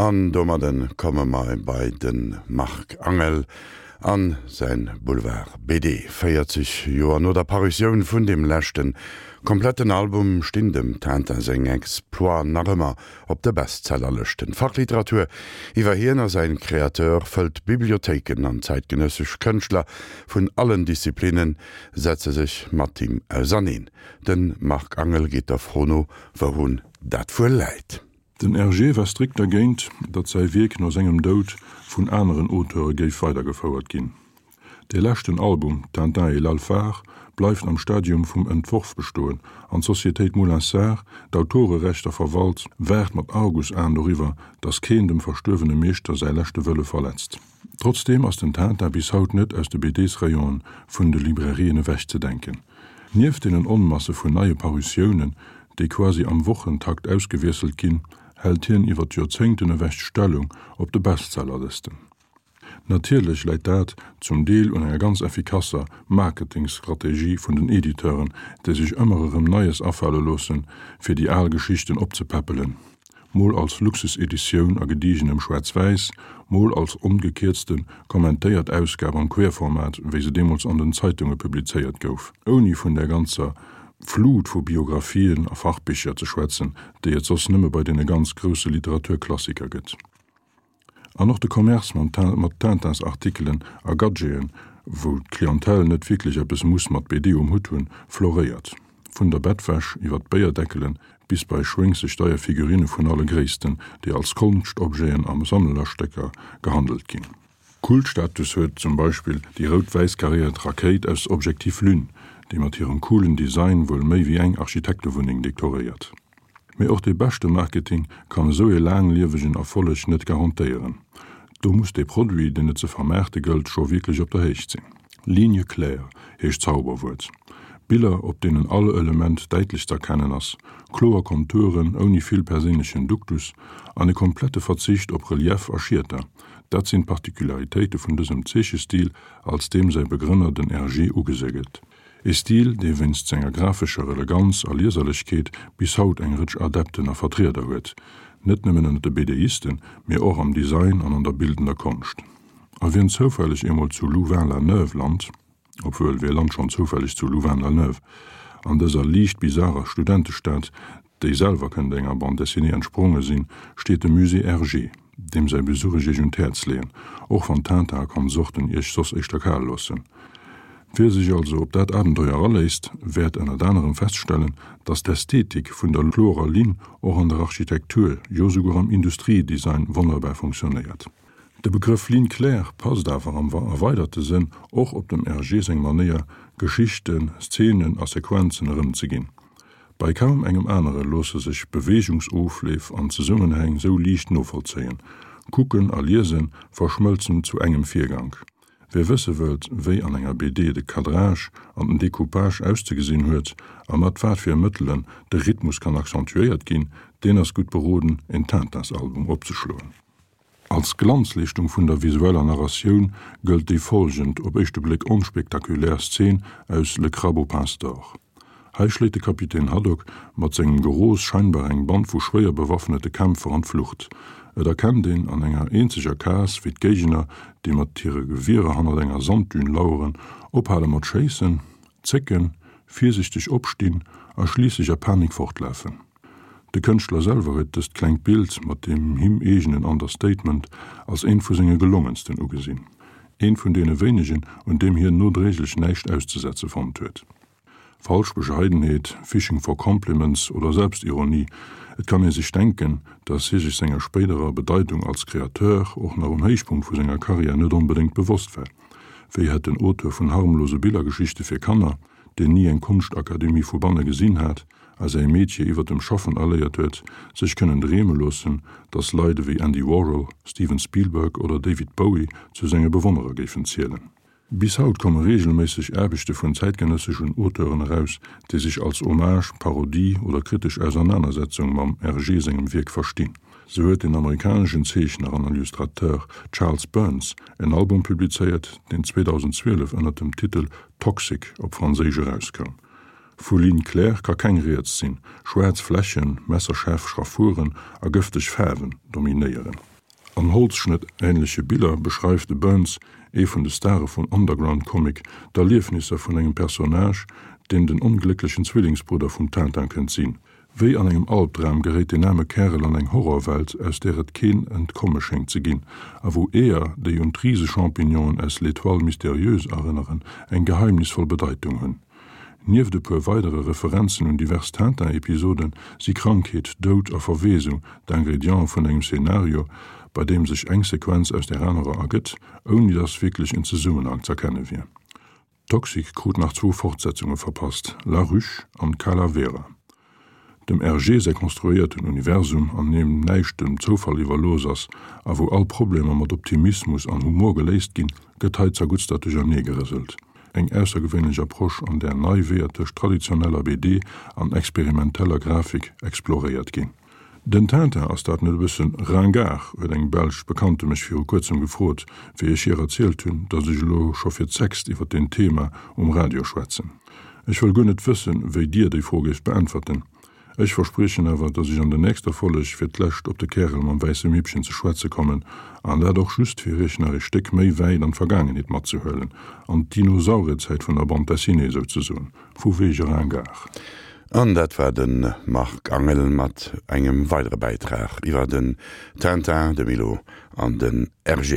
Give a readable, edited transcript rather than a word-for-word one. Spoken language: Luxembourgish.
An domadden komme mer bei de Marc Angel a säin Boulevard BD. 40 Joer no der Parutioun vun deem leschten kompletten Album stinn dem Tintin seng Exploiten nach ëmmer op de Bestsellerlëschten. D'Fachliteratur iwwer hien a säin Créateur fëllt d'Bibliothéiken an zäitgenëssesch Kënschtler vun allen Disziplinnen setze sech mat him auserneen. De Marc Angel geet der Fro no, wourun dat wuel läit. Den Hergé war strikt dergéint, datt säi Wierk no sengem Doud vun aneren Auteure géif weidergefouert ginn. Dee leschten Album, Tintin et l'Alphard, bleift am Stadium vum Entworf bestoen an d'Societéit Moulinsart, d'Autorerechter verwalt, waart mat Argusaen doriwwer, datt keen dem verstuerwene Meeschter säi leschte Wëlle verletzt. Trotzdeem ass den Tintin bis haut net aus de BDs-Rayonen vun de Librairien ewechzedenken. Nieft deenen Onmasse vun neie Parutiounen, déi quasi am Wochentakt ausgewiesselt ginn, hält hien iwwer d'Joerzéngten ewech d'Stellung op de Bestsellerlësten. Natierlech läit dat zum Deel un enger ganz effikasser Marketingstrategie vun den Editeuren, déi sech ëmmer erëm Neies afale loossen, fir déi al Geschichten opzepäppelen. Mol als Luxuseditioun a gedigenem Schwaarz-Wäiss, mol als ongekierzten, kommentéiert Ausgab am Querformat, wéi se deemools an den Zeitunge publizéiert gouf, ouni vun där ganzer Flut vu Biographien a Fachbicher ze schwätzen, déi et soss nëmme bei deene ganz grousse Literaturklassiker gëtt. An och de Commerce mat Tintins-Artikelen a Gadgeten, wou d'Clientèle net wierklech eppes muss mat BD um Hutt hunn, floréiert. Vun der Bettwäsch iwwer d'Béierdeckelen bis bei schwéngseg deier Figurine vun alle Gréissten, déi als Konschtobjeten a Sammlerstécker gehandelt ginn. Kultstatus huet zum Beispill déi rout-wäiss karéiert Rakéit aus Objectif Lune, déi mat hirem coolen Design wuel méi wéi eng Architektewunneng dekoréiert. Mee och dee beschte Marketing kann esou ee laangliewegen Erfolleg net garantéieren. Do muss dee Produit, deen et ze vermaarte gëllt, scho wierklech op der Héicht sinn. Ligne claire heescht d'Zauberwuert. Biller, op deenen all Element däitlech z'erkennen ass, kloer Konturen ouni vill perséinlechen Duktus an e komplette Verzicht op Relief a Schieter, dat sinn d'Particularitéite vun dësem Zeechestil, als deem säi Begrënner, den Hergé, ugesi gëtt. E Stil, dee wéinst senger graphescher Eleganz a Lieserlechkeet bis haut eng Rëtsch Adepten a Vertrieder huet, net nëmmen ënner de BDisten, mee och am Design an an der bildender Konscht. A wien zoufälleg eemol zu Louvain-la-Neuve lant, obwuel, wie lant schonn zoufälleg zu Louvain-la-Neuve, an dëser liicht bizarer Studentestad, déi selwer kënnt enger Bande dessinée entspronge sinn, steet de Musée Hergé, deem säi Besuch ech iech un d'Häerz leeën, och wann Tintin a Konsorten iech soss éischter kal loossen. Wie sech also op dat Abenteuer aléisst, wäert ënnert anerem feststellen, dass d'Ästhetik vun der klorer Linn och an der Architektur, jo souguer am Industriedesign wonnerbar funktionéiert. De Begrëff Ligne claire passt awer am erweiderte Sënn och op dem Hergé seng Manéier, Geschichten, Szenen a Sequenzen erëmzeginn. Bei kaum engem anere loosse sech Beweegungsofleef an Zesummenhäng sou liicht novollzéien. Kucken a Liese verschmëlzen zu engem Virgank. Wie wësse wëllt, wéi an enger BD de Cadrage an den Decoupage auszegesinn huet a mat wat fir Mëttelen de Rhythmus kann accentuéiert ginn, deen ass gutt beroden, en Tintins-Album opzeschloen. Als Glanzleeschtung vun der visueller Narratioun gëllt déi folgend, op éischte Bléck onspektakulär Szen aus Le Crabe aux pinces d'or. Hei schléit de Kapitän Haddock mat sengem Geros scheinbar eng Band vu schwéier bewaffnete Kämpfer an d'Flucht. Et erkennt een an enger eenzeger Case, wéi d'Géigner, déi mat hire Gewierer hannert enger Sanddün laueren, ophale mat schéissen, zécken, virsichteg opstinn a schliisslech a Panik fortlafen. De Kënschtler selwer huet dëst klengt Bild mat deem him eegenen Understatement als eent vu senge gelongensten ugesinn. Eent vun deene wéinegen, un deem hien nodréiglech näischt auszesetze fonnt huet. Falsch Bescheidenheet, Fishing for compliments oder Selbstironie, et kann ee sech denken, datt hie sech senger spéiderer Bedeitung als Kreateur och nach um Héichpunkt vu senger Karriär net onbedéngt bewosst war. Wéi hätt den Auteur vun harmlose Billergeschichte fir Kanner, deen ni eng Konschtakademie vu banne gesinn hat a säi Metier iwwer dem Schaffen erléiert huet, sech kënnen dreeme loossen, datt Leit ewéi Andy Warhol, Steven Spielberg oder David Bowie zu senge Bewonnerer géifen zielen. Bis haut komme reegelméisseg Aarbechte vun zäitgenësseschen Auteuren eraus, déi sech als Hommage, Parodie oder kritesch Ausernanersetzung mam Hergé sengem Wierk verstinn. Sou huet den amerikaneschen Zeechner an Illustrateur Charles Burns en Album publizéiert, deen 2012 ënner dem Titel Toxic op Franséisch erauskoum. Vu Ligne claire ka keng Rieds sinn, schwaarz Flächen, messerschaarf Schraffuren a gëfteg Faarwen dominéieren. An Holzschnëtt-änleche Biller beschreift de Burns, ee vun de Stare vum Underground-Comic, d'Erliefnisser vun engem Personnage, deen den onglécklechen Zwillingsbrudder vum Tintin kënnt sinn. Wéi an engem Albdram geréit den aarme Kärel an eng Horrorwelt, aus där et keen Entkomme schéngt ze ginn, a wou Eeër, déi un d'Riseschampignonen aus L'Étoile mystérieuse erënneren, eng geheimnisvoll Bedeitung hunn. Nieft e puer weidere Referenzen un divers Tintin-Episoden si Krankheet, Doud a Verweesung d'Ingrediente vun engem Szenario, bei deem sech eng Sequenz aus där anerer ergëtt, ouni dass wierklech en Zesummenhang z'erkenne wier. Toxic krut nach zwou Fortsetzunge verpasst, La Ruche an Calavera. Dem Hergé säi konstruéierten Universum, an deem näischt dem Zoufall iwwerlooss ass a wou all Problemer mat Optimismus an Humor geléist ginn, gëtt hei zerguttstert duercherneegerëselt. Eng aussergewéinlech Approche, an där nei Weeër tëscht traditioneller BD an experimenteller Grafik exploréiert ginn. Den Tintin, ass dat net e bëssen ringard? huet eng belsch Bekannte mech viru kuerzem gefrot, wéi ech hir erzielt hunn, datt ech elo scho fir d'sechst iwwer deen Thema um Radio schwätzen. Ech wëll guer net wëssen, wéi Dir déi Fro géift beäntwerten. Ech verspriechen awer, datt ech an der nächster Folleg fir d'lescht op de Kärel mam wäisse Mippchen ze schwätze kommen, an dat och just fir Iech nach ee Stéck méi wäit an d'Vergaangenheet matzehuelen, an d'Dinosaurierzäit vun der Bande dessinée souzesoen. Vu wege ringard. An dat war de Marc Angel mat engem weidere Bäitrag iwwer den Tintin, de Milou an den Hergé.